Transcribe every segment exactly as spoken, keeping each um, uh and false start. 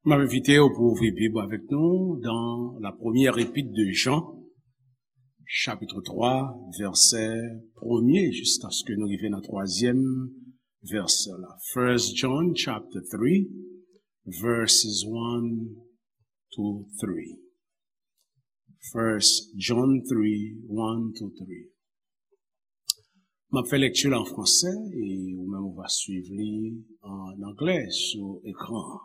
M ap envite w pou ouvri Bib avèk nou dans la première épître de Jean, chapitre trois, verset premier, jiskaske nou rive nan twazyèm vèsè la. First John chapter three, verses one to three. First John three, one to three. M ap fè lèkti la an fransè e ou menm ou va swiv li an anglè sou ekran an.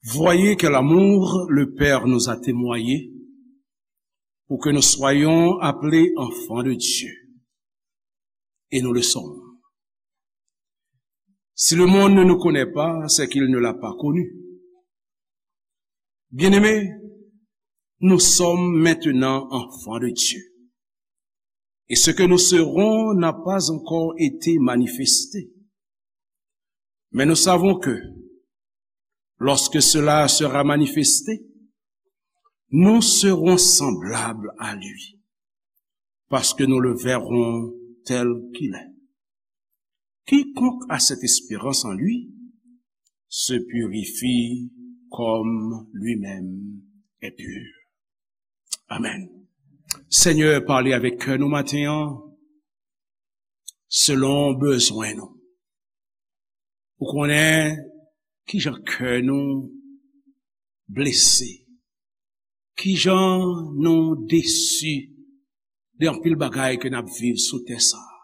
Voyez quel amour le Père nous a témoigné pour que nous soyons appelés enfants de Dieu. Et nous le sommes. Si le monde ne nous connaît pas, c'est qu'il ne l'a pas connu. Bien-aimés, nous sommes maintenant enfants de Dieu. Et ce que nous serons n'a pas encore été manifesté. Mais nous savons que, lorsque cela sera manifesté, nous serons semblables à lui, parce que nous le verrons tel qu'il est. Quiconque a cette espérance en lui se purifie comme lui-même est pur. Amen. Senyè, pale avèk kè nou maten an, selon bezwen nou. Ou konnen kijan kè nou blese, kijan nou desi de anpil bagay ke n ap viv sou tè sa a.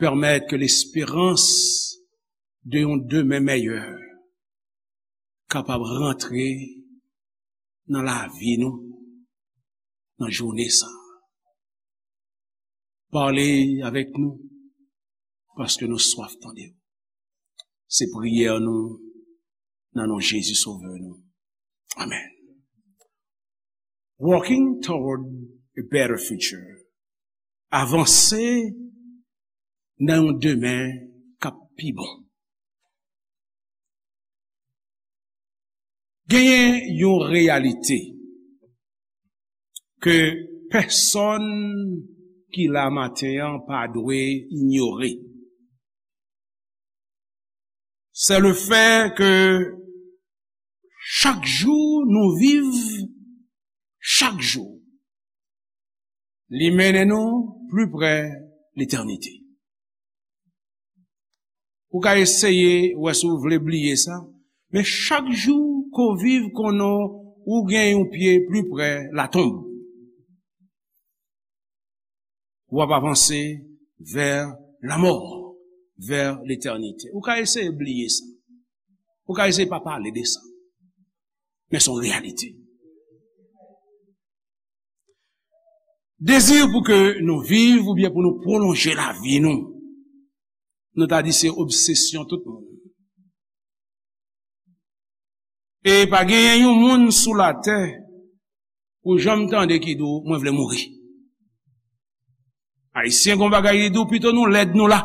Pèmèt ke lesperans de yon demen mèyè kapab rantre nan lavi nou, nan jounen sa a. Pale avèk nou, paske nou swaf tande w. Se priyè nou, nan non Jezi Sovè nou. Amen. Walking toward a better future. Avanse nan yon demen k ap pi bon. Genyen yon reyalite ke pèsonn ki la maten an pa dwe inyore. C'est le fait que chak jou nou viv, chak jou, li mennen nou pli pre letènite. Ou ka eseye wè si w vle bliye sa, men chak jou ke w viv konnen w gen yon pye pli pre latonb. W ap avanse vè lanmò, vè letènite. Ou ka eseye bliye sa. Ou ka eseye pa pale de sa. Men se yon reyalite. Dezi pou ke nou viv oubyen pou nou pwolonje lavi nou, nou ta di se obsesyon tout moun. E pa genyen yon moun sou latè ou janm tande ki di w, "Mwen vle mouri." Ayisyen gon bagay li di w, "Pito nou lèd nou la."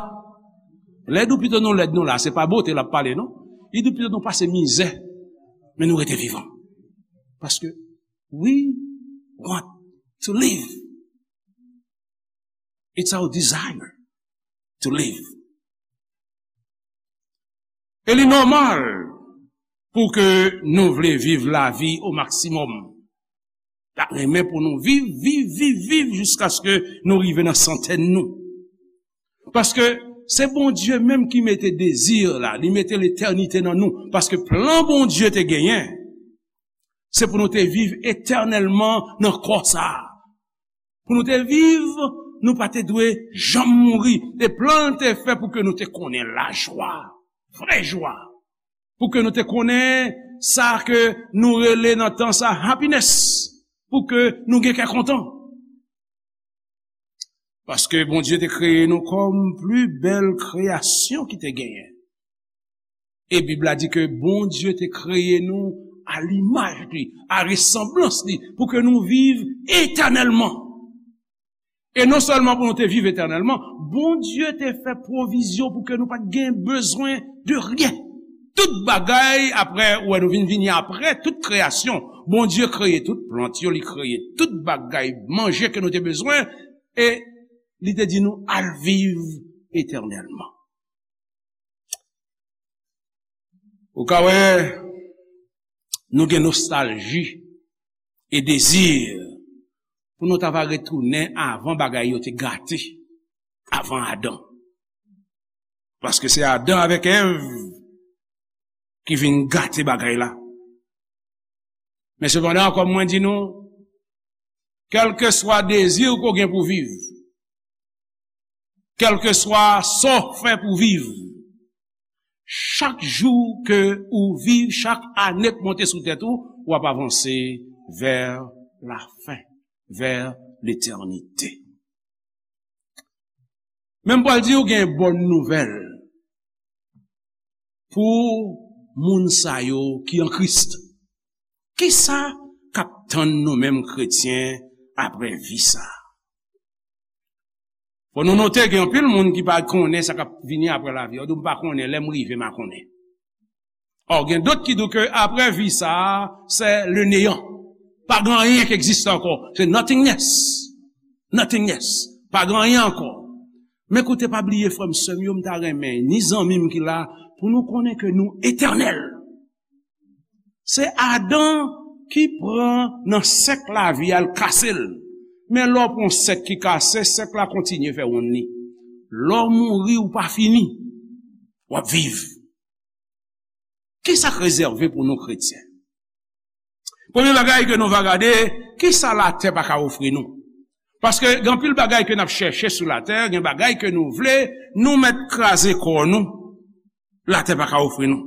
Lèd ou pito nou lèd nou la, se pa bote l ap pale non. Li di w, "Pito nou pase mizè, men nou rete vivan." Paske we want to live. It's our desire to live. E li nòmal pou ke nou vle viv lavi o maksimòm. N ap renmen pou nou viv, viv, viv, viv jiskaske nou rive nan santèn nou. Paske se Bondye menm ki mete dezi la, li mete letènite nan nou. Paske plan Bondye te genyen, se pou nou te viv etènèlman nan kò sa a. Pou nou te viv, nou pa te dwe janm mouri. E plan l te fè pou ke nou te konnen lajwa, vrè jwa. Pou ke nou te konnen sa ke nou rele nan tan sa happiness. Pou ke nou gen kè kontan. Paske Bondye te kreye nou kòm pli bèl kreyasyon ki te genyen. E Bib la di ke Bondye te kreye nou a limaj li, a resanblans li, pou ke nou viv etènèlman. E non sèlman pou nou te viv etènèlman, Bondye te fè pwovizyon pou ke nou pa t gen bezwen de ryen. Tout bagay, apre, ou wè nou vin vini apre tout kreyasyon. Bondye kreye tout plant yo, li kreye tout bagay manje ke nou te bezwen, e li te di nou al viv etènèlman. Ou ka wè, nou gen nostalji e dezi pou nou ta va retounen avan bagay yo te gate, avan Adan. Paske se Adan avèk Èv ki vin gate bagay la. Men sepandan, kòm mwen di nou, kèlkeswa dezi w ke w gen pou viv, kèlkeswa sa w fè pou viv, chak jou ke ou viv, chak ane k monte sou tèt ou, w ap avanse vè lafen, vè letènite. Men m pral di w gen bòn nouvèl pou moun sa yo ki an Kris. Kisa k ap tann nou menm kretyen apre vi sa a? Fò nou note gen anpil moun ki pa konnen sa k ap vini apre lavi a. Yo di, "M pa konnen, lè m rive, m a konnen." Ò, gen dòt ki di ke apre vi sa a, se le néant. Pa gen anyen ki egziste ankò. Se nothingness. Nothingness. Pa gen anyen ankò. Men koute, pa bliye, frè m, sè m yo, m ta renmen, ni zanmi m ki la, pou nou konnen ke nou etènèl. Se Adan ki pran nan sèk lavi a, l kase l. Men lè w pran sèk ki kase, sèk la kontinye fè wonn li. Lè w mouri, ou pa fini. W ap viv. Kisa k rezève pou nou kretyen? Premye bagay ke nou va gade, kisa latè pa ka ofri nou? Paske gen anpil bagay ke n ap chèche sou latè, gen bagay ke nou vle, nou mèt kraze kò nou, latè pa ka ofri nou.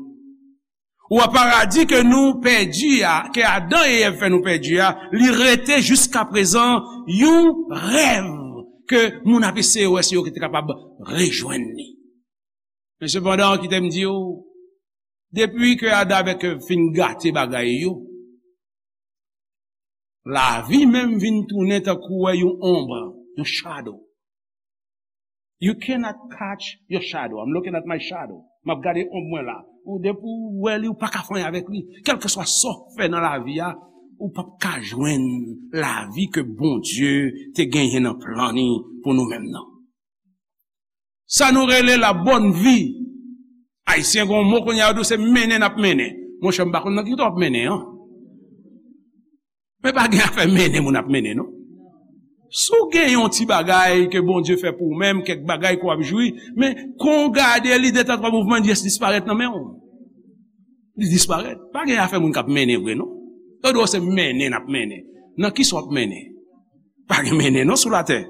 Ou wè paradi ke nou pèdi a, ke Adan e Èv fè nou pèdi a, li rete jiska prezan yon rèv ke moun ap eseye wè si yo te kapab rejwenn li. Men sepandan, kite m di w, depi ke Adan avèk Èv fin gate bagay yo, lavi menm vin tounen tankou wè yon onb, yon shadow. You cannot catch your shadow. I'm looking at my shadow. M ap gade onb mwen la. Ou depi w wè li, ou pa ka fè anyen avèk li. Kèlkeswa sa w fè nan lavi a, ou p ap ka jwenn lavi ke Bondye te genyen nan plan li pou nou menm nan. Sa nou rele la bonne vie. Ayisyen gen yon mo kounye a, yo di w se mennen n ap mennen. Monchè, m pa konn nan ki kote w ap mennen an. Men pa gen afè mennen moun ap mennen, non. Si w gen yon ti bagay ke Bondye fè pou ou menm, kèk bagay ke w ap jwi, men kon w gade li, de tan twa mouvman, li jis disparèt nan men w. Li disparèt. Pa gen afè moun k ap mennen vre, non. Yo di w se mennen n ap mennen. Nan kisa w ap mennen? Pa gen mennen, non, sou latè.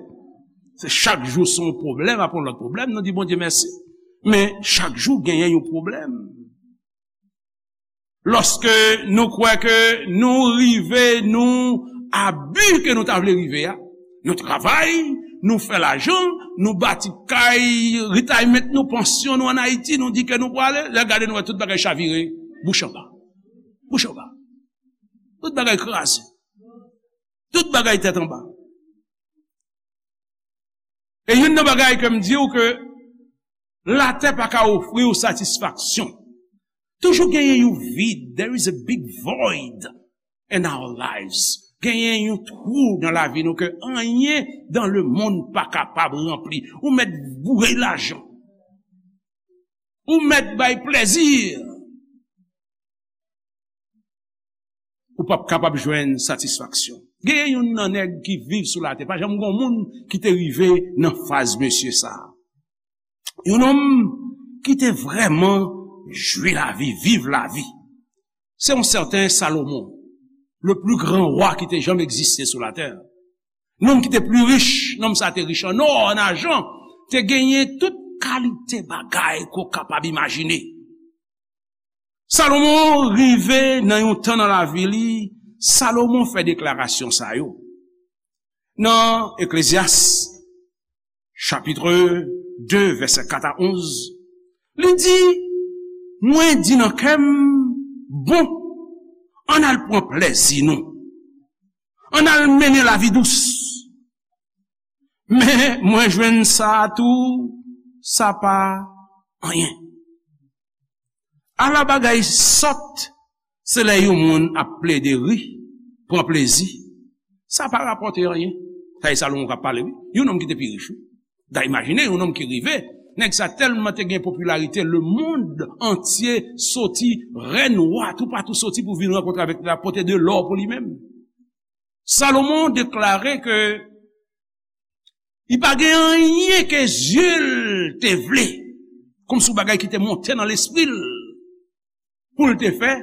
Se chak jou se yon pwoblèm apre yon lòt pwoblèm, nou di Bondye mèsi. Men chak jou genyen yon pwoblèm. Lòske nou kwè ke nou rive, nou a bi ke nou ta vle rive a, nou travay, nou fè lajan, nou bati kay, retirement nou, pansyon nou ann Ayiti, nou di ke nou prale, lè gade nou wè tout bagay chavire, bouch anba. Bouch anba. Tout bagay kraze. Tout bagay tèt anba. E youn nan bagay ke m di w ke latè pa ka ofri w satisfaksyon. Toujou genyen yon vid. There is a big void in our lives. Genyen yon twou nan lavi nou ke anyen dans le monde pa kapab ranpli. Ou mèt boure lajan. Ou mèt bay plèzi. Ou p ap kapab jwenn satisfaksyon. Genyen youn nan nèg ki viv sou latè. Pa janm gen yon moun ki te rive nan faz mesye sa a. Yon nonm ki te vrèman jwi lavi, viv lavi. Se yon sèten Salomon, le plus grand roi ki te janm egziste sou latè. Nonm ki te pli rich, nonm sa te rich an nò, an ajan, te genyen tout kalite bagay ke w kapab imajine. Salomon rive nan yon tan nan lavi li, Salomon fè deklarasyon sa yo. Nan Eklezyas, chapit de, vèsè kat a onz, li di, "Mwen di nan kè m, bon, ann al pran plèzi nou. Ann al mennen lavi dous." Men mwen jwenn sa a tou, sa pa anyen. Ala bagay sòt, se lè yon moun ap plede ri, pran plezi. Sa pa rapòte anyen. Sa e Salomon k ap pale, wi. Yon nonm ki te pi rich, wi. Da imajine yon nonm ki rive Nèg sa tèlman te gen popilarite, lemonn antye soti, rèn, wa, toupatou soti pou vin rankontre avèk li, la pote de lò pou li menm. Salomon deklare ke li pa gen anyen ke zye l te vle, kòmsi yon bagay ki te monte nan lespri l pou l te fè,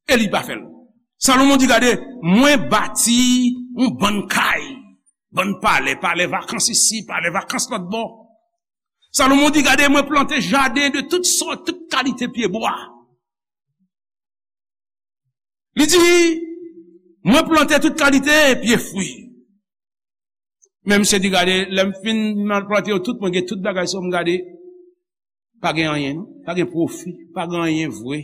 e li pa fè l. Salomon di, gade, mwen bati yon bann kay, bann palè, palè vakans isi, palè vakans lòt bò. Salomon di, gade, mwen plante jaden de tout sòt, tout kalite pyebwa. Li di, mwen plante tout kalite pye fwi. Men misye di, gade, lè m fin mal plante yo tout, mwen gen tout bagay sa yo, m gade, pa gen anyen, non. Pa gen pwofi, pa gen anyen vre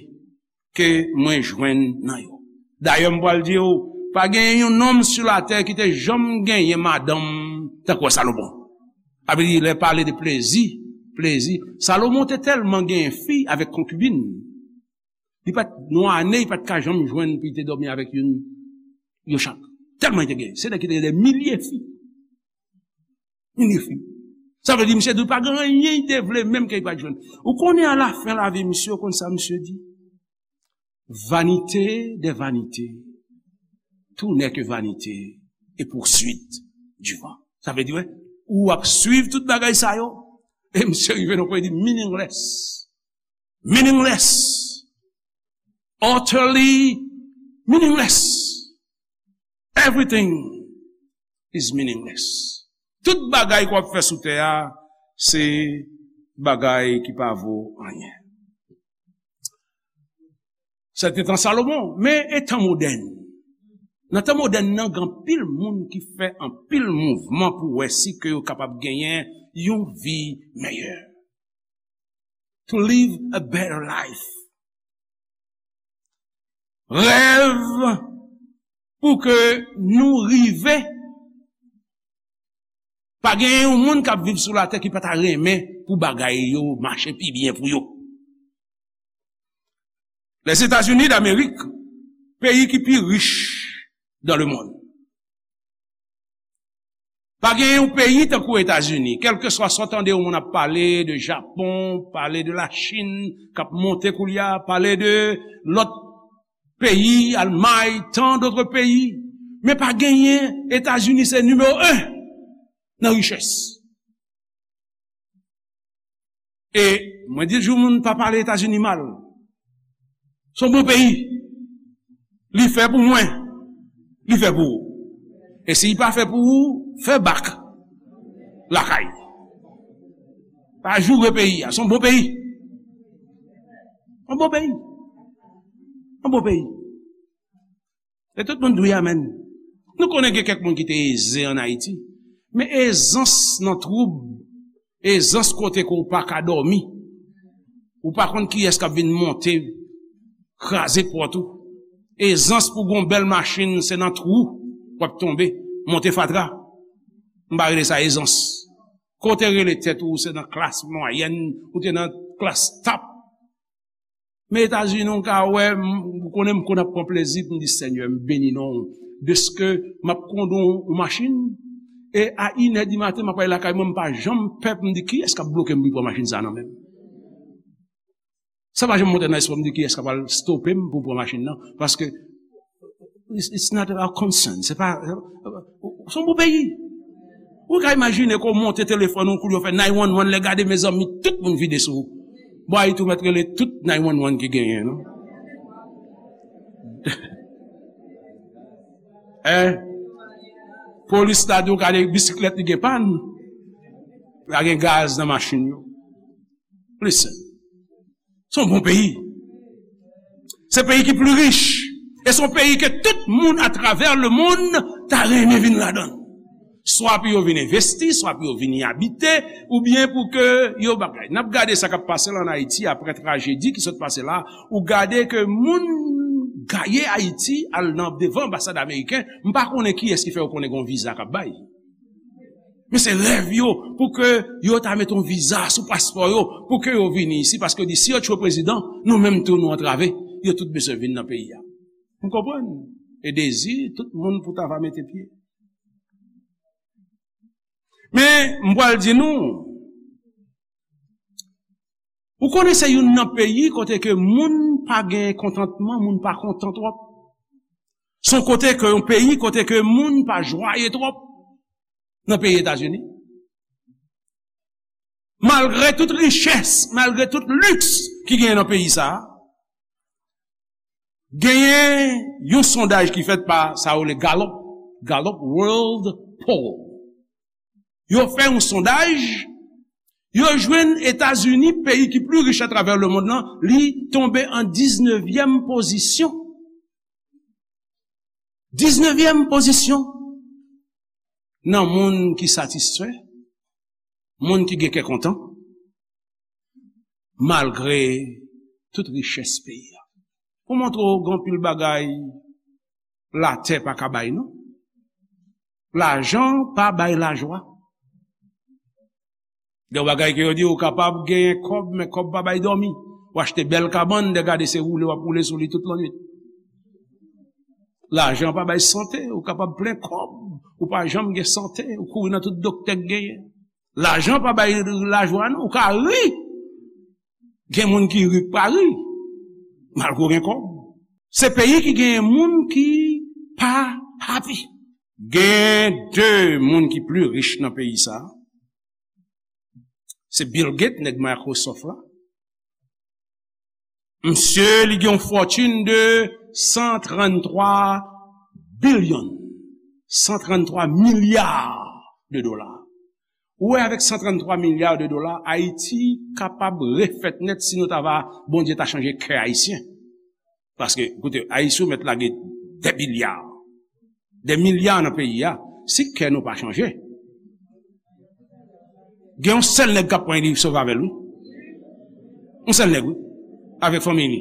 ke mwen jwenn nan yo. Dayè, m pral di w, pa gen yon nonm sou latè ki te janm genyen madanm tankou Salomon. Sa vle di, lè pale de plezi, plezi. Salomon te tèlman genyen fi avèk konkibin. Li pa t, nan ane, li pa t ka janm jwenn pou li te dòmi avèk youn, yo chak. Tèlman li te gen. Se nèg ki te gen de milye fi. Milye fi. Sa vle di, misye di, pa gen anyen li te vle, menm ke li pa t jwenn. Ou konnen, alafen lavi misye, ou konn sa misye di? Vanité des vanités, tout n'est que vanité et poursuite du vent. Sa vle di, wè, ou ap swiv tout bagay sa yo, e misye rive nan pwen, li di, meaningless. Meaningless. Utterly meaningless. Everything is meaningless. Tout bagay ke w ap fè sou tè a, se bagay ki pa vo anyen. Sa te tan Salomon, men e tan modèn. Nan tan modèn nan, gen anpil moun ki fè anpil mouvman pou wè si ke yo kapab genyen yon vi meyè. To live a better life. Rèv pou ke nou rive. Pa gen yon moun k ap viv sou latè ki pa ta renmen pou bagay yo mache pi byen pou yo. Lèzetazini Damerik, peyi ki pi rich dans le monde. Pa gen yon peyi tankou Etazini, kèlkeswa sa w tande yon moun ap pale de Japon, pale de Lachin, k ap monte koulye a, pale de lòt peyi, Almay, tant d'autres pays, men pa genyen, Etazini se nimewo en nan richès. E mwen di toujou moun pa pale Etazini mal. Se yon bon peyi. Li fè pou mwen. Li fè pou ou. E si li pa fè pou ou, fè bak lakay. Pa joure peyi a. Se yon bon peyi. Yon bon peyi. Yon bon peyi. E tout moun di wi, amèn. Nou konnen gen kèk moun ki te eze ann Ayiti. Men ezans nan twoub, ezans kote ke w pa ka dòmi. Ou pa konn kiyès k ap vin monte, kraze pòt ou. Ezans pou gon bèl machin, se nan twou w ap tonbe, monte fatra. M pa rele sa ezans. Kote rele tèt ou, se nan klas mwayèn, ou te nan klas top. Men Etazini, w ka wè, m, ou konnen m konn ap pran plezi pou m di, Senyè, m beni non w. Dèske m ap kondwi yon machin, e a inè di maten, m ap ale lakay mwen, m pa janm pè pou m di, kiyès k ap bloke m pou m pran machin sa nan men m? Sa pa janm monte nan lespri m di, kiyès k ap al stope m pou m pran machin nan? Paske, it's, it's not our concern. Se pa, se yon bon peyi. Ou ka imajine ke w monte telefòn ou, koulye w fè nine one one, lè gade, mezanmi, tout moun vide sou ou. Bon, Ayiti, ou mèt rele tout nine one one ki genyen, non? Hein? Polis la di w gade bisiklèt li gen pàn. Pa gen gaz nan machin yo. Listen. Se yon bon peyi. Se peyi ki pli rich. E se yon peyi ke tout moun atravè lemonn ta renmen vin ladan l. Swa pou yo vin envesti, swa pou yo vin y abite, oubyen pou ke yo bagay. N ap gade sa k ap pase la ann Ayiti apre trajedi ki sot pase la. Ou gade ke moun gaye Ayiti al nan devan anbasad ameriken. M pa konnen kiyès ki fè yo konnen gen yon viza k ap bay. Men se rèv yo pou ke yo ta mete yon viza sou paspò yo pou ke yo vini isi, paske yo di si yo tchwe prezidan, nou menm tou nou antrave, yo tout bezwen vin nan peyi a. M konprann. E dezi tout moun pou ta va mete pye. Men m pral di nou, Ou konnen se youn nan peyi kote ke moun pa gen kontantman, moun pa kontan twòp. Se yon kote ke, yon peyi kote ke moun pa jwaye twòp nan peyi Etazini. Malgre tout richès, malgre tout liks ki genyen nan peyi sa a, genyen yon sondaj ki fèt pa sa yo rele Gallup, Gallup World Poll. Yo fè yon sondaj, yo jwenn Etazini, peyi ki pli rich atravè lemonn nan, li tonbe an diznevyèm pozisyon. Diznevyèm pozisyon nan moun ki satisfè, moun ki gen kè kontan, malgre tout richès peyi a. Pou montre w gen anpil bagay latè pa ka bay, non. Lajan pa bay lajwa. Gen bagay ke yo di ou kapab genyen kòb, men kòb pa bay dòmi. Ou achte bèl kabann, de gade se woule w ap woule sou li tout lannwit. Lajan pa bay sante, ou kapab plen kòb, ou pa janm gen sante, ou kouri nan tout doktè k genyen. Lajan pa bay lajwa non, ou ka ri. Gen moun ki ri k pa ri, malgre w gen kòb. Se peyi ki genyen moun ki pa happy. Gen de moun ki pli rich nan peyi sa. Se Bill Gates, nèg Microsoft la. Misye, li gen yon fòtin de san tranntwa bilyon, san tranntwa milya de dola. Ou wè, avèk san tranntwa milya de dola, Ayiti kapab refèt nèt si nou ta va, Bondye ta chanje kè Ayisyen. Paske, koute, Ayisyen ou mèt lage de milya, de milya nan peyi a, si kè nou pa chanje. Gen yon sèl nèg k ap pran li sove avè l, wi. Yon sèl nèg, wi. Avèk fanmi li.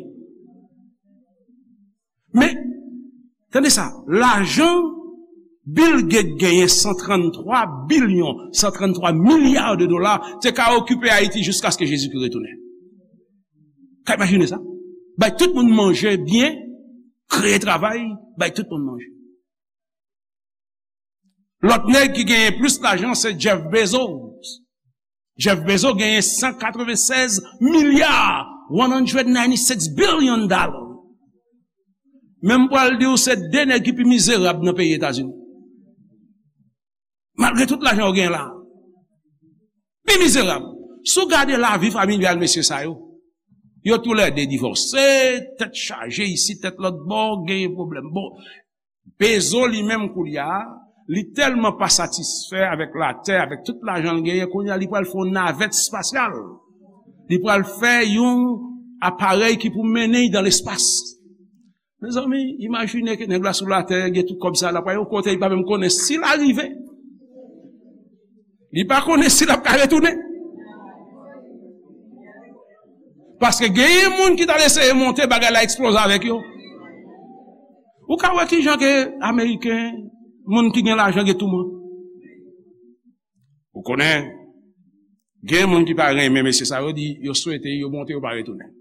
Men, tande sa, lajan Bill Gates genyen san tranntwa bilyon, san tranntwa milya de dola, te ka okipe Ayiti jiskaske Jezikri retounen. Ka imajine sa? Bay tout moun manje byen, kreye travay, bay tout moun manje. Lòt nèg ki genyen plis lajan se Jeff Bezos. Jeff Bezos genyen san katrevennsèz milya, one hundred ninety-six billion dollars. Men m pral di w, se de nèg ki pi mizerab nan peyi Etazini. Malgre tout lajan yo genyen la. Pi mizerab. Si w gade lavi familyal mesye sa yo, yo toulède divòse, tèt chaje isi, tèt lòt bò, genyen pwoblèm. Bon, Bezos li menm koulye a, li tèlman pa satisfè avèk latè, avèk tout lajan l genyen, kounye a li pral fè yon navèt espasyal. Li pral fè yon aparèy ki pou mennen l dan lespas. Mezanmi, imajine ke nèg la sou latè, gen tout kòb sa, l ap pral yon kote, li pa menm konnen si l a rive. Li pa konnen si l ap ka retounen. Paske genyen moun ki t al eseye monte, bagay la eksploze avèk yo. Ou ka wè kijan ke Ameriken, moun ki gen lajan gen touman. Ou konnen, gen moun ki pa renmen mesye sa yo, di yo swete yo monte, yo pa retounen.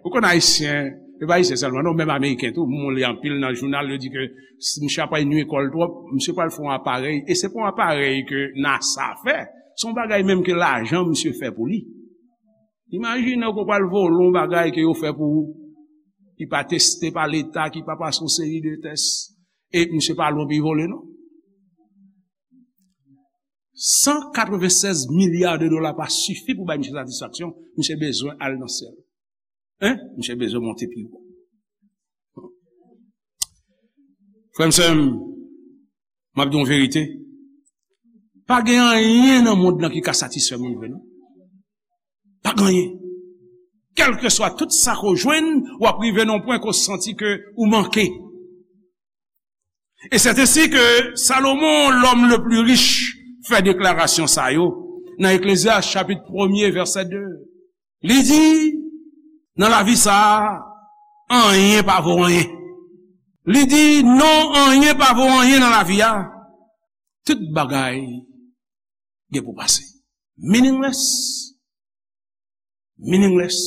Ou konn Ayisyen, e pa Ayisyen sèlman, non, menm Ameriken tou, moun li anpil nan jounal, yo di ke si misye ap nwi kò l twòp, misye pral fè yon aparèy, e se pa yon aparèy ke NASA fè, se yon bagay menm ke lajan misye fè pou li. Imajine w ke w pral vole yon bagay ke yo fè pou ou, ki pa teste pa leta, ki pa pase yon seri de tès, e misye pa lwen pou l vole, non. San katrevennsèz milya de dola pa sifi pou bay misye satisfaksyon, misye bezwen al nan syèl. Hein? Misye bezwen monte pi wo. Frè m, sè m, m ap di w verite. Pa gen anyen nan mond lan ki ka satisfè moun vre, non. Pa gen anyen. Kèlkeswa tout sa ke w jwenn, w ap rive nan yon pwen ke w santi ke ou manke. E c'est ainsi que Salomon, l'homme le plus riche, fè deklarasyon sa yo nan Eklezyas chapit premye, vèsè de. Li di, nan lavi sa a, anyen pa vo anyen. Li di, non, anyen pa vo anyen nan lavi a. Tout bagay gen pou pase. Meaningless. Meaningless,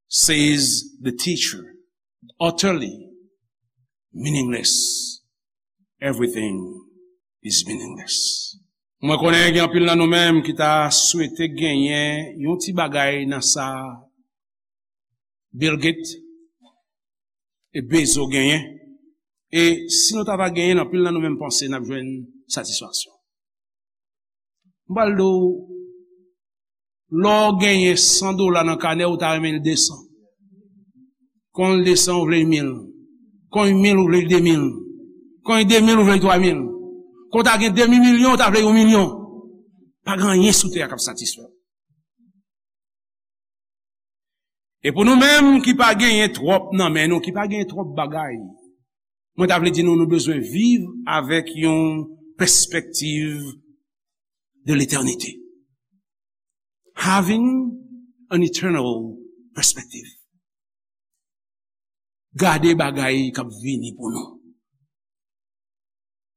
says the teacher. Utterly meaningless. Everything is meaningless. Mwen konnen gen anpil nan nou menm ki ta swete genyen yon ti bagay nan sa Bill Gates e Bezos genyen. E si nou ta va genyen, anpil nan nou menm panse n ap jwenn satisfaksyon. M pral di w, lè w genyen san dola nan kanè, ou ta renmen l de san. Kon l de san, ou vle l mil. Kon l mil, ou vle l de mil. Kon l de mil, ou vle l twa mil. Kon w ta gen demi milyon, ou ta vle yon milyon. Pa gen anyen sou tè a k ap satisfè w. E pou nou menm ki pa genyen twòp nan men nou, ki pa genyen twòp bagay, mwen ta vle di nou, nou bezwen viv avèk yon pèspektiv de letènite. Having an eternal perspective. Gade bagay k ap vini pou nou.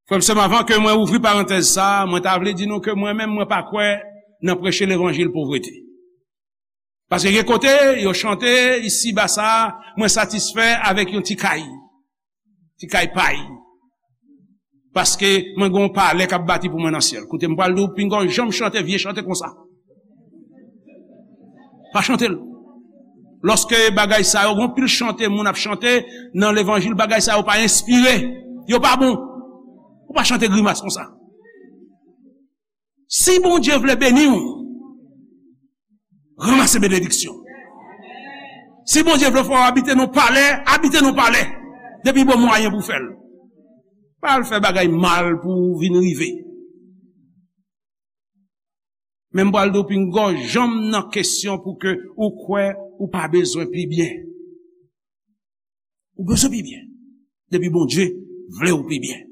Frè m, sè m, avan ke mwen ouvri parantèz sa a, mwen ta vle di nou ke mwen menm, mwen pa kwè nan preche levanjil povrete. Paske gen kote, yo chante, isi ba sa a, mwen satisfè avèk yon ti kay. Ti kay pay. Paske mwen gen yon palè k ap bati pou mwen nan syèl. Koute, m pral di w, pinga w janm chante vye chante konsa. Pa chante l. Lòske bagay sa yo, gen pil chante moun ap chante nan levanjil, bagay sa yo pa enspire. Yo pa bon. Ou pa chante grimas konsa. Si Bondye vle beni w, ranmase benediksyon. Si Bondye vle fè w abite nan palè, abite nan palè. Depi bon mwayen pou fè l. Pa al fè bagay mal pou w vin rive. Men m pral di w, pinga w janm nan kesyon pou ke ou kwè ou pa bezwen pi byen. Ou bezwen pi byen. Depi Bondye vle w pi byen.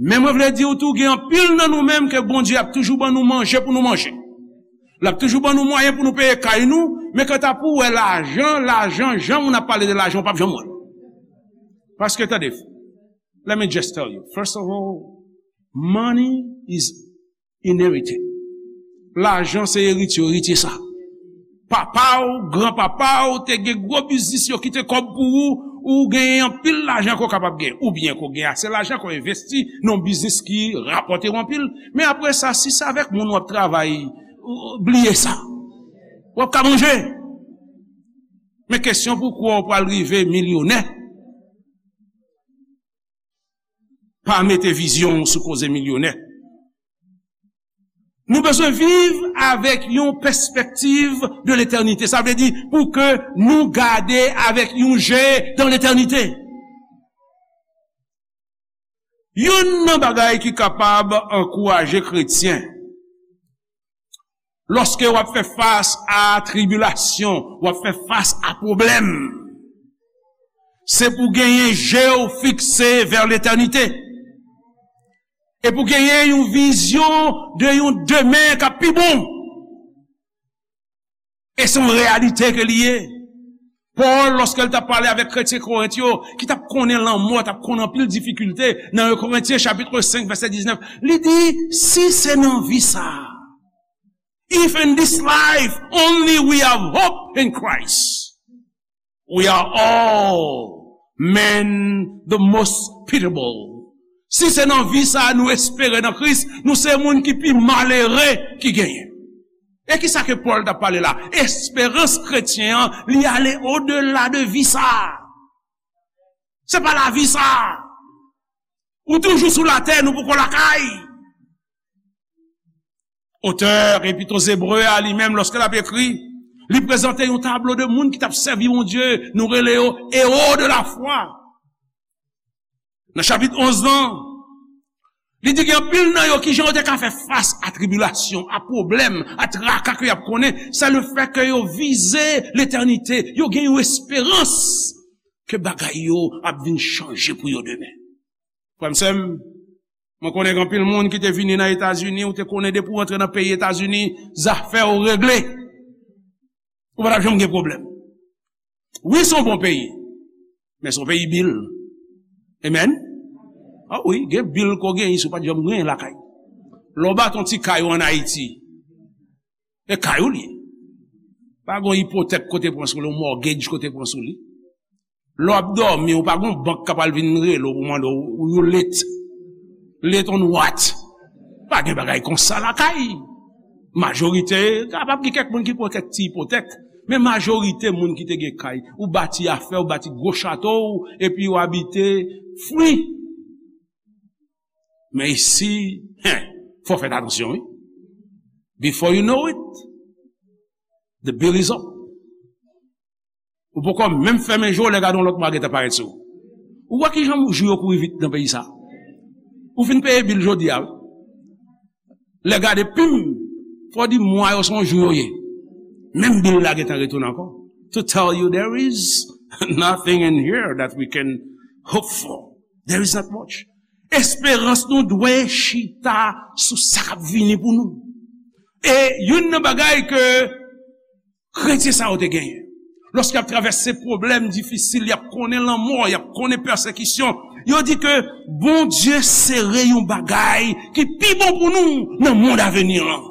Men mwen vle di w tou, gen anpil nan nou menm ke Bondye ap toujou ban nou manje pou nou manje. L ap toujou ban nou mwayen pou nou peye kay nou, men kanta pou w wè lajan, lajan, jan moun ap pale de lajan, w p ap janm wè l. Paske, tande, let me just tell you, first of all, money is inherited. Lajan se eritye, eritye sa. Papa w, granpapa w te gen gwo biznis, yo kite kòb pou ou, ou genyen anpil lajan ke w kapab gen. Oubyen ke w gen ase lajan ke w envesti nan yon biznis ki rapòte w anpil. Men apre sa, si se avèk moun w ap travay, ou, bliye sa. W ap ka manje. Men kesyon pou kwè w pral rive milyonè. Pa mete vizyon w sou koze milyonè. Nou bezwen viv avèk yon pèspektiv de letènite. Sa vle di pou ke nou gade avèk yon je dan letènite. Youn nan bagay ki kapab ankouraje kretyen, lòske w ap fè fas a tribilasyon, w ap fè fas a pwoblèm, se pou genyen je w fikse vè letènite. E pou genyen yon vizyon de yon demen k ap pi bon. E se yon reyalite ke li ye. Pòl, lòske l t ap pale avèk kretyen Korent yo, ki t ap konnen lanmò, t ap konnen anpil difikilte, nan en Korentyen chapit senk, vèsè diznèf, li di, si se nan vi sa a, if in this life only we have hope in Christ, we are all men the most pitiable. Si se nan vi sa a nou espere nan Kris, nou se moun ki pi malere ki genyen. E ki sa ke Pòl t ap pale la? Esperans kretyen an, li ale odela de vi sa a. Se pa lavi sa a. Ou toujou sou latè, nou poko lakay. Otè Epit Ebre a, li menm, lòske l ap ekri, li prezante yon tablo de moun ki t ap sèvi Bondye, nou rele yo ewo de lafwa. Nan chapit onz lan, li di gen anpil nan yo, kijan yo te ka fè fas a tribilasyon, a pwoblèm, a traka ke y ap konnen, se lefètke yo vize letènite, yo gen yon esperans ke bagay yo ap vin chanje pou yo demen. Frè m, sè m, mwen konnen gen anpil moun ki te vini nan Etazini, ou te konnen depi w rantre nan peyi Etazini, zafè w regle. Ou pa t ap janm gen pwoblèm. Wi, se yon bon peyi, men se yon peyi bil. Amen? A wi, gen bil ke w genyen, si w pa t janm genyen lakay. Lè w bati yon ti kay ou ann Ayiti, e kay ou li ye. Pa gen yon ipotèk ke w te pran sou li, yon mortgage ke w te pran sou li. Lè w ap dòmi, ou pa gen yon bank k ap al vin rele w pou mande w, you late. Late on what? Pa gen bagay konsa lakay. Majorite, kapab gen kèk moun ki pran kèk ti ipotèk, men majorite moun ki te gen kay, ou bati afè, ou bati gwo chato w, epi ou abite fri. Men isi, hen, fò fè atansyon, wi. Before you know it, the bill is up. Ou poko menm fèmen je w, lè gade yon lòt mwa gentan parèt sou ou. Ou wè kijan jou yo kouri vit nan peyi sa? Ou fin peye bil jodi a, wi. Lè gade pim, fò di mwa yo se yon jou yo ye. Menm bil la gentan retounen ankò. To tell you there is nothing in here that we can hope for. There is not much. Esperans nou dwe chita sou sa k ap vini pou nou. E youn nan bagay ke kretyen sa yo te genyen, lòske y ap travèse pwoblèm difisil, y ap konnen lanmò, y ap konnen pèsekisyon, yo di ke Bondye sere yon bagay ki pi bon pou nou nan mond aveni an.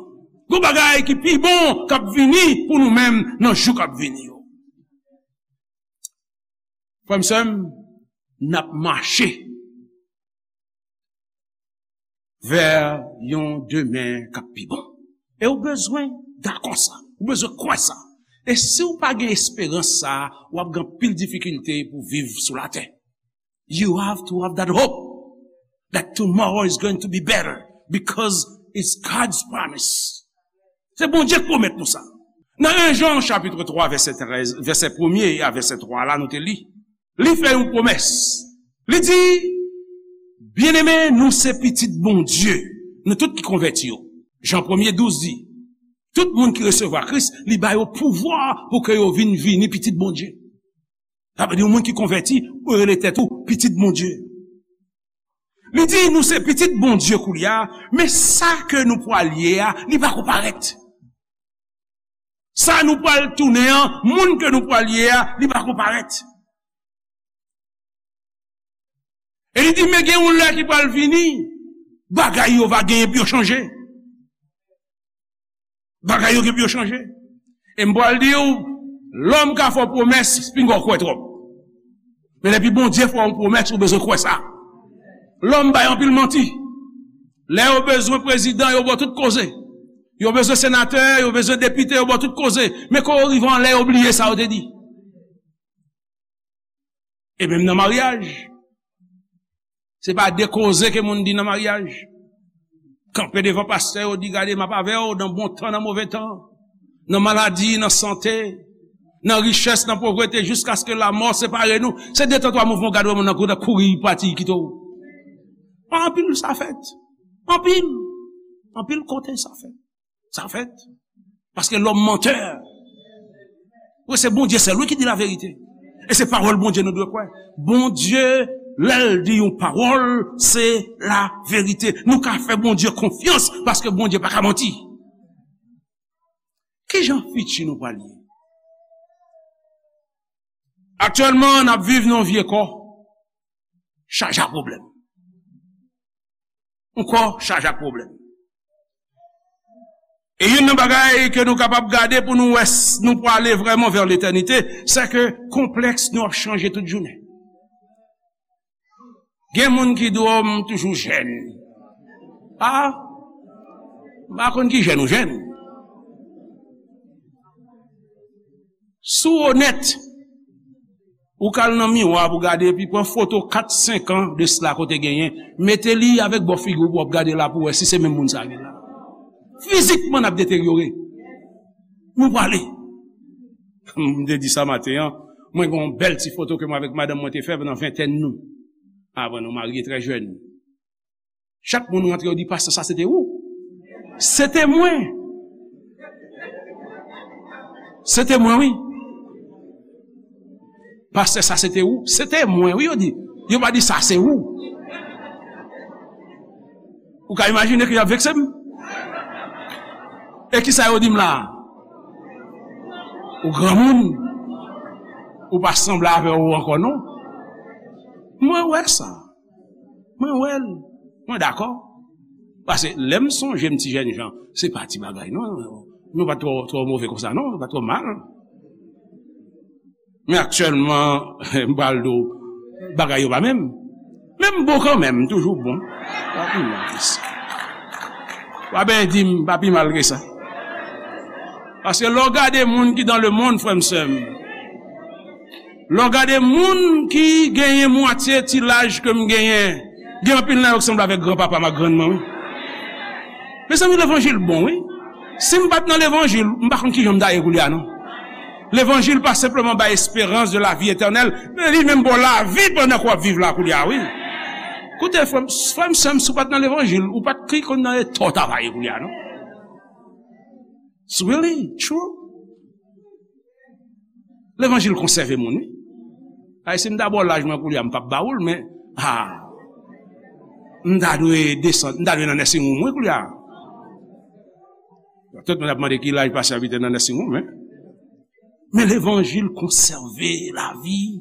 Yon bagay ki pi bon k ap vini pou nou menm nan jou k ap vini yo. Frè m, sè m, n ap mache vè yon demen k ap pi bon. E ou bezwen dakò sa. Ou bezwen kwè sa. E si w pa gen esperans sa, w ap gen anpil difikilte pou viv sou latè. You have to have that hope that tomorrow is going to be better because it's God's promise. Se Bondye k pwomèt nou sa. Nan en Jan chapit twa vèsè trèz, vèsè premye a vèsè twa la, nou te li. Li fè yon pwomès. Li di, "Byeneme, nou se pitit Bondye, nou tout ki konvèti yo." Jan premye douz di, "Tout moun ki resevwa Kris, li ba yo pouvwa pou ke yo vin vini pitit Bondye." Sa vle di, yon moun ki konvèti, ou rele tèt ou pitit Bondye. Li di, "Nou se pitit Bondye koulye a, men sa ke nou pral ye a, li pako parèt." Sa nou pral tounen an, moun ke nou pral ye a, li pako parèt. E li di, "Men gen yon lè ki pral vini, bagay yo va genyen pou yo chanje." Bagay yo gen pou yo chanje. E m pral di w, lòm ka fè w pwomès, pinga w kwè twòp. Men depi Bondye fè w yon pwomès, ou bezwen kwè sa. Lòm bay anpil manti. Lè yo bezwen prezidan, yo ba w tout koze. Yo bezwen senatè, yo bezwen depite, yo ba w tout koze. Men kan yo rive anlè, yo bliye sa yo te di. E menm nan maryaj, se pa de koze ke moun di nan maryaj. Kanpe devan pastè yo, di, "Gade, m ap avè w nan bon tan, nan move tan, nan maladi, nan sante, nan richès, nan povrete, jiskaske lamò separe nou." Se de tan twa mouvman, w gade moun nan kouri, kouri pati, kite w. Anpil sa fèt. Anpil. Anpil kote sa fèt. Sa fèt. Paske lòm mantè. Wi, se Bondye sèl, wi, ki di laverite. E se pawòl Bondye nou dwe kwè. Bondye, lè l di yon pawòl, se laverite. Nou ka fè Bondye konfyans, paske Bondye pa ka manti. Kijan fiti nou pral ye? Aktyèlman, n ap viv nan yon vye kò chaje ak pwoblèm. Yon kò chaje ak pwoblèm. E youn nan bagay ke nou kapab gade pou nou wè s-, nou prale vrèman vè letènite, se ke konplèks nou ap chanje tout jounen. Gen moun ki di w, "M toujou jèn." A, m pa konn ki jèn ou jèn. Si w onèt, ou ka al nan miwa pou gade, epi pran foto kat, senk an de sila ke w te genyen, mete li avèk bò figi w pou w ap gade la pou w wè si se menm moun sa ki la. Fizikman, n ap deteryore. Nou prale. M te di sa maten an, mwen gen yon bèl ti foto ke mwen avèk madanm mwen te fè pandan ventèn nou. Avan nou marye trè jèn. Chak moun rantre, yo di, "Pastè, sa se te ou?" Se te mwen. Se te mwen, wi. "Pastè, sa se te ou?" Se te mwen, wi, yo di. Yo pa di, "Sa se ou." Ou ka imajine ke y ap vekse m? E kisa yo di m la? Ou granmoun. Ou pa sanble avè w ankò, non. Mwen wè sa. Mwen wè l. Mwen dakò. Paske lè m sonje m ti jènjan, se pa ti bagay, non. Nou pa t twò, twò move konsa, non. Nou pa t twò mal. Men aktyèlman, m pral di w, bagay yo pa menm. Men m bon kanmenm, m toujou bon. Pa pi mal ke sa. Pa benyen di m, pa pi mal ke sa. Paske lè w gade moun ki dans le monde, frè m, sè m, lè w gade moun ki genyen mwatye ti laj ke m genyen, gen anpil nan yo ki sanble avèk granpapa m ak grann mwen, wi. Mezanmi, levanjil bon, wi. Si m pa t nan levanjil, m pa konn kijan m ta ye koulye a, non. Levanjil pa senpleman bay esperans de la vie etènèl, men li menm ba w lavi pandan ke w ap viv la koulye a, wi. Koute, frè m, frè m, sè m, si w pa t nan levanjil, ou pa t ki konn nan eta w ta va ye koulye a, non. It's really true. Levanjil konsève moun, wi. Ay, si m ta ba w laj mwen koulye a, m p ap ba ou l, men, ah, m ta dwe desann, m ta dwe nan nursing home, wi, koulye a. Tout moun ap mande ki laj pastè a pete nan nursing home, men. Men levanjil konsève lavi.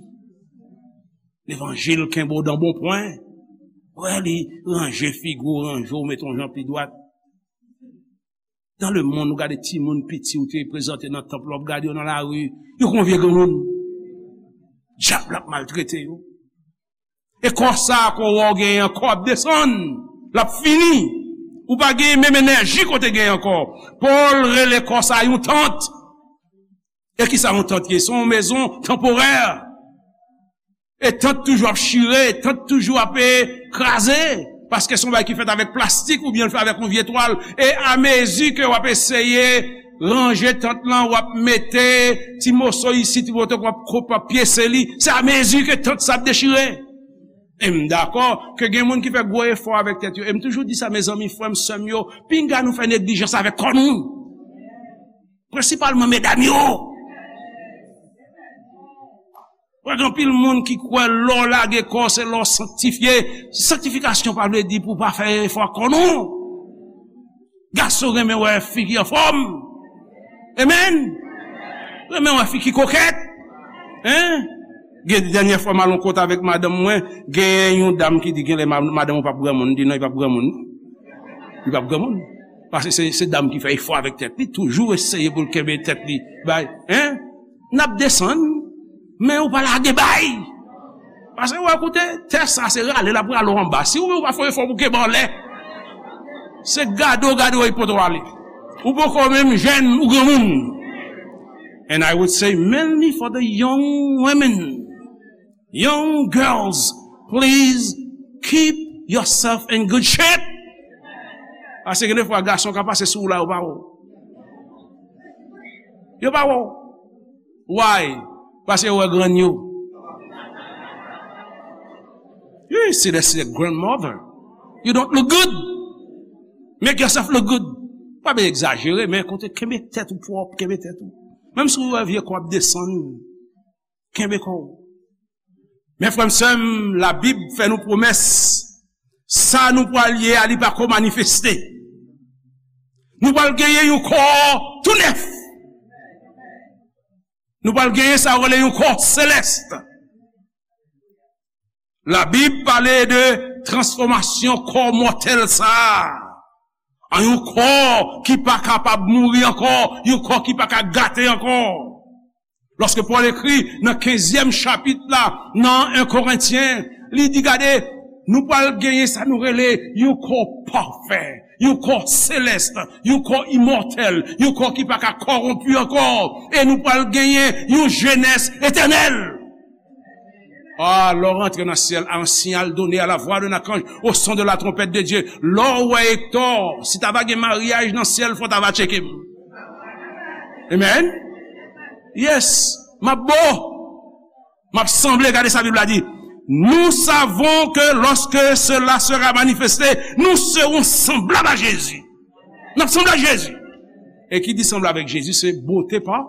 Levanjil kenbe w dan bon pwen. Wè, li ranje figi w, ranje w, mete w jan pi dwat. Dans le monde, ou gade timoun piti ou te prezante nan tanp la, w ap gade yo nan lari, yo kon vye granmoun. Dyab la ap maltrete yo. E kò sa a ke w wè w genyen an, kò ap desann, l ap fini. Ou pa genyen menm enèji ke w te genyen ankò. Pòl rele kò sa a yon tant. E kisa yon tant ye? Se yon mezon tanporè. E tant toujou ap chire, tant toujou ap, e, kraze. Paske se yon bagay ki fèt avèk plastik oubyen l fèt avèk yon vye twal. E amezi ke w ap eseye ranje tant lan, w ap mete ti moso isit, ti moso, w ap koupe, w ap pyese li. Se amezi ke tant sa ap dechire. E m dakò ke gen moun ki fè gwo efò avèk tèt yo. E m toujou di sa, mezanmi, frè m, sè m yo, pinga nou fè neglijans avèk kò nou. Prensipalman medam yo. Wè, gen anpil moun ki kwè lè w lage kò w, se lè w sanktifye. Sanktifikasyon pa vle di pou w pa fè efò ak kò w, non. Gason renmen wè fi ki anfòm. Amen. Renmen wè fi ki kokèt. Hein? Gen dènyè fwa m al yon kote avèk madanm mwen, gen yon dam ki di genlè ma-, madanm ou p ap granmoun, m di non, li p ap granmoun. Li p ap granmoun. Paske se, se dam ki fè efò avèk tèt li, toujou eseye pou l kenbe tèt li. Bay, hein? N ap desann, men ou pa lage bay. Paske, wè, koute, tè sa se rale l ap rale w anba. Si ou menm ou pa fè efò pou kenbe anlè, se gade w gade w epi pote w ale. Ou poko menm jèn, ou granmoun. And I would say mainly for the young women. Young girls, please keep yourself in good shape. Paske gen de fwa gason ka pase sou ou la, yo pa wè w. Yo pa wè w. Why? Paske yo wè grann yo. You see, that's your grandmother. You don't look good. Make yourself look good. Pa byen egzajere, men kote kenbe tèt ou pwòp, kenbe tèt ou. Menm si w wè vye kò ap desann, kenbe kò w. Men frè m, sè m, Labib fè nou pwomès, sa nou pral ye a, li pa ko manifeste. Nou pral genyen yon kò tou nèf. Nou pral genyen sa yo rele yon kò selès. Labib pale de transfòmasyon kò mòtèl sa a an yon kò ki pa kapab mouri ankò, yon kò ki pa ka gate ankò. Lòske Pòl ekri nan kenzyèm chapit la, nan en Korentyen, li di, gade, nou pral genyen sa nou rele yon kò pafè, yon kò selès, yon kò imòtèl, yon kò ki pa ka kòwonpi ankò, e nou pral genyen yon jenès etènèl. Ah, lè w rantre nan syèl, à un signal donné, à la voix d'un archange, au son de la trompette de Dieu. Lè w wè Ektò, si ta va gen maryaj nan syèl, fò ta va tcheke m. Amen. Yes. M ap bo. M ap sanble, gade sa Bib la di. Nous savons que lorsque cela sera manifesté, nous serons semblables à Jésus. N ap sanble ak Jezi. E ki di sanble avèk Jezi, se bote pa,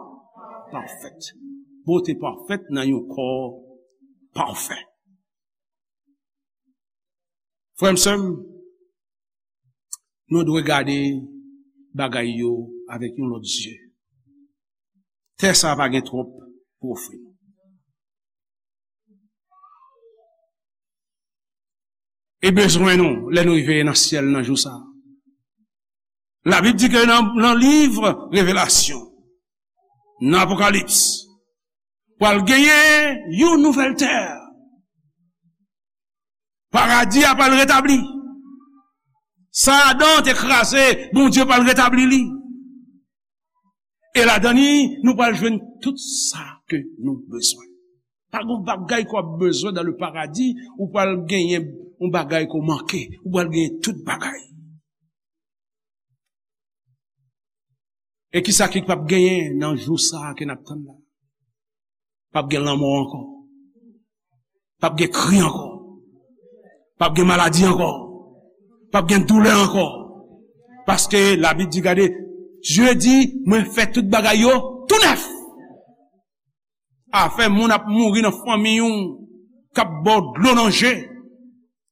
pafèt. Bote pafèt nan yon kò pafè. Frè m, sè m, nou dwe gade bagay yo avèk yon lòt zye. Tè sa a pa gen twòp pou ofri nou. E bezwen nou, lè nou rive nan syèl nan jou sa a. Labib di ke nan, nan liv Revelasyon, nan Apokalips, pral genyen yon nouvèl tè. Paradi a pral retabli. Sa Adan te kraze, Bondye pral retabli li. E ladan li, nou pral jwenn tout sa ke nou bezwen. Pa gen bagay ke w ap bezwen dans le paradis, ou pral genyen yon bagay ke w manke, ou pral genyen tout bagay. E kisa ki p ap genyen nan jou sa a ke n ap tann la? P ap gen lanmò ankò. P ap gen kri ankò. P ap gen maladi ankò. P ap gen doulè ankò. Paske Labib di, gade, Dye di, mwen fè tout bagay yo tou nèf. Afè moun ap mouri nan fanmi w, k ap ba w dlo nan je,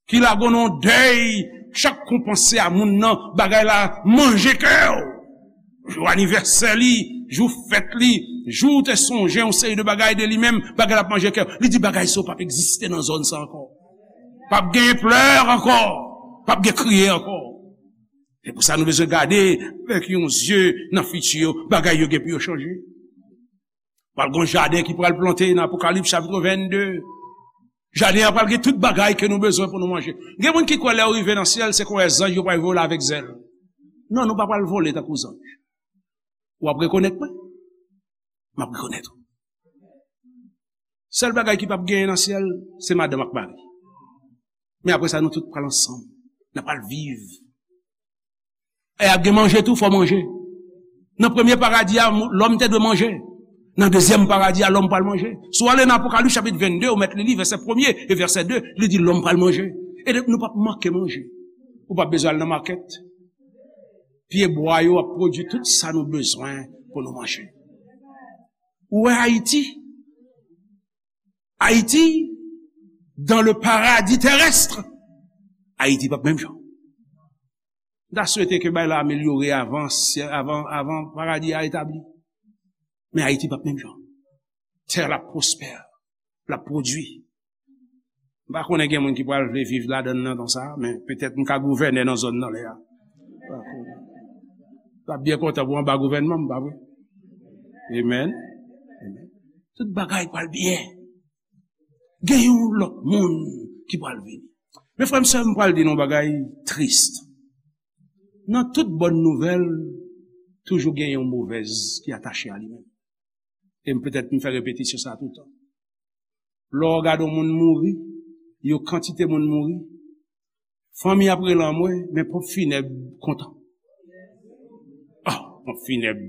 ki lage w nan dèy, chak kou w panse a moun nan, bagay la manje kè w. Jou anivèsè li, jou fèt li, jou w te sonje yon seri de bagay de li menm, bagay la ap manje kè w. Li di bagay sa yo p ap egziste nan zòn sa ankò. P ap gen plè ankò, p ap gen kriye ankò. Se pou sa nou bezwen gade avèk yon zye nan fiti yo, bagay yo gen pou yo chanje. Pral gen yon jaden ki pral plante nan Apokalips chapit vennde. Jaden an pral gen tout bagay ke nou bezwen pou nou manje. Gen moun ki kwè lè yo rive nan syèl, se kon zanj yo pral vole avèk zèl. Non, nou pa pral vole tankou zanj. W ap rekonèt mwen? M ap rekonèt ou. Sèl bagay ki p ap genyen nan syèl, se madanm ak mari. Men apre sa, nou tout pral ansanm. N ap pral viv. E ap gen manje tou, fò manje. Nan premye paradi a, lòm te dwe manje. Nan dezyèm paradi a, lòm pral manje. Si w ale nan Apokalips chapit vennde, ou mèt li li, vèsè premye e vèsè de, li di lòm pral manje. E nou p ap manke manje. Ou p ap bezwen al nan makèt. Pyebwa yo ap pwodui tout sa nou bezwen pou nou manje. Ou wè Ayiti? Ayiti, dans le paradis terrestre, Ayiti p ap menm jan. M ta swete ke bagay la amelyore avan, avan, avan paradi a etabli. Men Ayiti p ap menm jan. Tè la pwospè, l ap pwodui. M pa konnen gen moun ki pral vle viv ladan l nan tan sa a, men petèt m ka gouvènè nan zòn nan lè a. M pa konnen. M ap byen kontan pou anba gouvènman m, pa vre? Amen. Amen. Tout bagay pral byen. Gen yon lòt moun ki pral vini. Men frè m, sè m, pral di nou yon bagay tris. Nan tout bòn nouvèl, toujou gen yon movèz ki atache a li menm. E m petèt m fè repetisyon sa toutan. Lè w gade yon moun mouri, yon kantite moun mouri, fanmi ap rele anmwe, men ponp finèb kontan. Ah, ponp finèb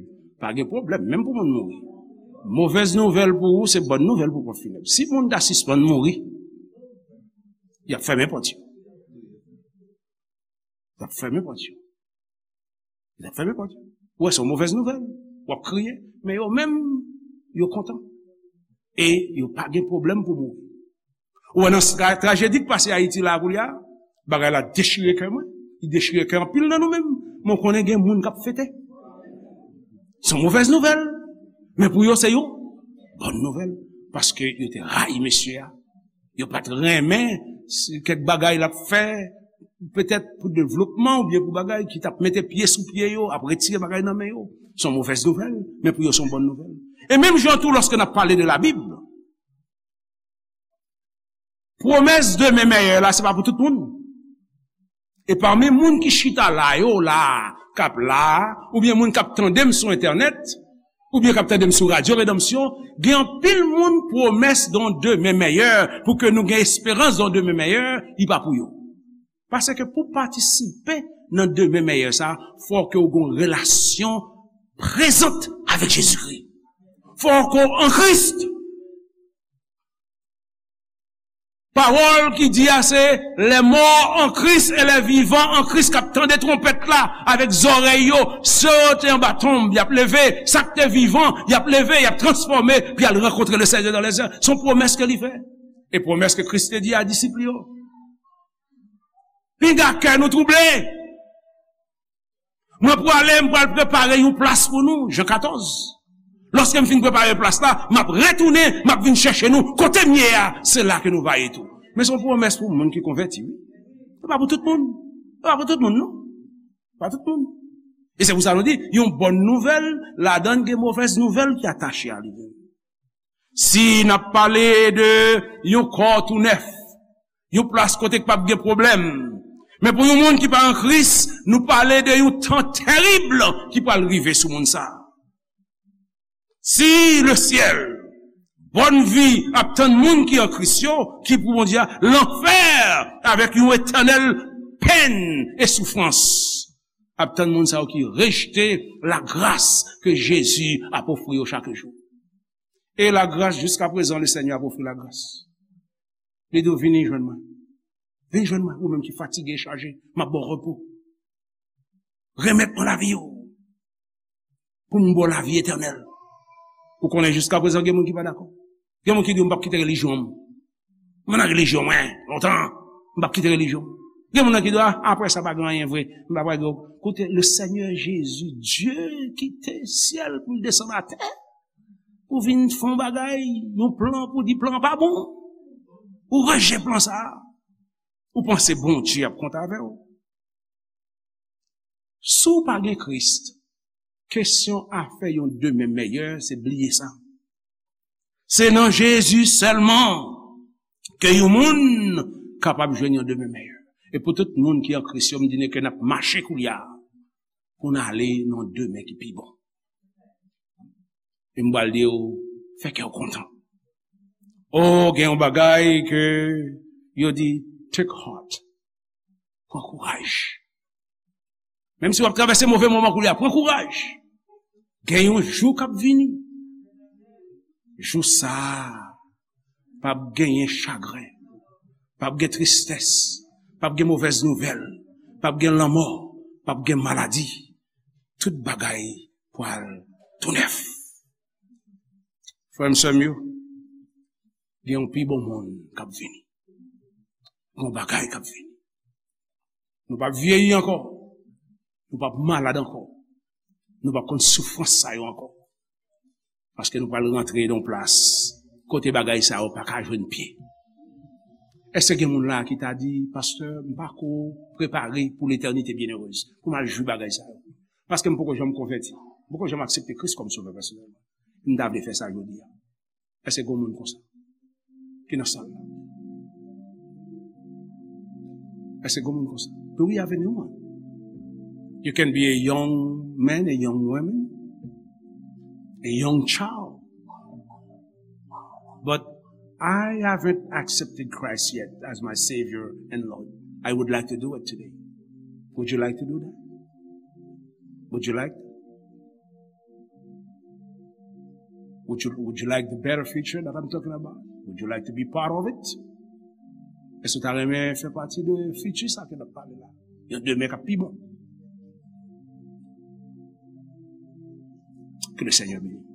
pa gen pwoblèm, menm pou moun mouri. Movèz nouvèl pou ou, se bòn nouvèl pou ponp finèb. Si moun ta sispann mouri, y ap fèmen pòt yo. Y ap fèmen pòt yo. Y ap fèmen pòt yo. Ou wè, se yon movèz nouvèl. W ap kriye. Men yo menm, yo kontan. E yo pa gen pwoblèm pou mouri. Ou wè nan tra-, trajedi k pase Ayiti la koulye a, bagay la dechire kè mwen. Li dechire kè anpil nan nou menm. Men w konnen gen moun k ap fete. Se yon movèz nouvèl. Men pou yo, se yon bòn nouvèl. Paske yo te rayi mesye a. Yo pa t renmen si kèk bagay l ap fè, petèt pou devlopman oubyen pou bagay, ki t ap mete pye sou pye yo, ap retire bagay nan men yo. Se yon movèz nouvèl, men pou yo se yon bòn nouvèl. E menm jan tou, lòske n ap pale de Labib, pwomès demen mèyè la, se pa pou tout moun. E pami moun ki chita la yo la, k ap la, oubyen moun k ap tande m sou entènèt, oubyen k ap tande m sou Radyo Redanmsyon, gen anpil moun pwomès de yon demen mèyè, pou ke nou gen esperans de yon demen mèyè, li pa pou yo. Paske pou patisipe nan demen mèyè sa, fò ke w gen yon relasyon prezant avèk Jezikri. Fò ke w an Kris. Pawòl ki di a se, les morts en Christ et les vivants en Christ k ap tande twonpèt la avèk zòrèy yo, sa yo te anba tonb, y ap leve, sa k te vivan, y ap leve, y ap transfòme, pou y al rankontre le Seigneur dans les airs. Se yon pwomès ke li fè. E pwomès ke Kris te di a disip li yo. Pinga kè nou twouble. Mwen prale, m pral prepare yon plas pou nou, Jan katòz. Lòske m fin prepare plas la, m ap retounen, m ap vin chèche nou. Kote m ye a, se la ke nou va ye tou. Men se yon pwomès pou moun ki konvèti, wi. Se pa pou tout moun. Se pa pou tout moun, non. Pa tout moun. E se pou sa nou di, yon bòn nouvèl, ladan l gen movèz nouvèl ki atache a li menm. Si n ap pale de yon kò tou nèf, yon plas kote k p ap gen pwoblèm, Men pou yon moun ki pa an Kris, nou pale de yon tan terib ki pral rive sou moun sa a. Si lesyèl, bòn vi ap tann moun ki an Kris yo, ki pou Bondye a, lanfè avèk yon etènèl pèn e soufrans ap tann moun sa yo ki rejte lagras ke Jezi ap ofri yo chak jou. E lagras, jiskaprezan, Lesenyè ap ofri lagras. Li di w, "Vini jwenn mwen. Vin jwenn mwen, ou menm ki fatige e chaje, m ap ba w repo. Remèt mwen lavi w, pou m ba w lavi etènèl." Ou konnen, jiskaprezan, gen moun ki pa dakò. Gen moun ki di, "M p ap kite relijyon m. Mwen nan relijyon mwen, lontan. M p ap kite relijyon m." Gen moun nan ki di, "A, apre sa, pa gen anyen vre. M pa pral gen." Koute, le Seigneur Jésus, Dieu kite syèl pou l desann atè, pou vin fè yon bagay, yon plan, pou di plan pa bon. Ou rejte plan sa a. Ou panse Bondye ap kontan avè w? Si w pa gen Kris, kesyon afè yon demen mèyè, se bliye sa. Se nan Jezi sèlman ke yon moun kapab jwenn yon demen mèyè. E pou tout moun ki an Kris yo, m di nou ke n ap mache koulye a pou n ale nan yon demen ki pi bon. E m pral di w, fè kè w kontan. O, gen yon bagay ke yo di, take heart. Pran kouraj. Menm si w ap travèse move moman koulye a, pran kouraj. Gen yon jou k ap vini. Jou sa a, p ap genyen chagren, p ap gen tristès, p ap gen movèz nouvèl, p ap gen lanmò, p ap gen maladi. Tout bagay pral tou nèf. Frè m, sè m yo, gen yon pi bon moun k ap vini. Gen yon bagay k ap vini. Nou p ap vyeyi ankò. Nou p ap malad ankò. Nou p ap konn soufrans sa yo ankò. Paske nou pral rantre nan yon plas kote bagay sa yo pa ka jwenn pye. Èske gen moun la ki ta di, "Pastè, m pako prepare pou letènite byennerez, pou m al jwi bagay sa yo? Paske m poko janm konvèti. M poko janm aksepte Kris kòm sovè pèsonèl mwen. M ta vle fè sa jodi a." Èske gen moun konsa ki nan sal la? Èske gen moun konsa? Do we have anyone? You can be a young man, a young woman, a young child. But I haven't accepted Christ yet as my Savior and Lord. I would like to do it today. Would you like to do that? Would you like? Would you, would you like the better future that I'm talking about? Would you like to be part of it? Èske w ta renmen fè pati de fiti sa ke n ap pale la? Yon demen k ap pi bon. Ke le Seigneur bénisse.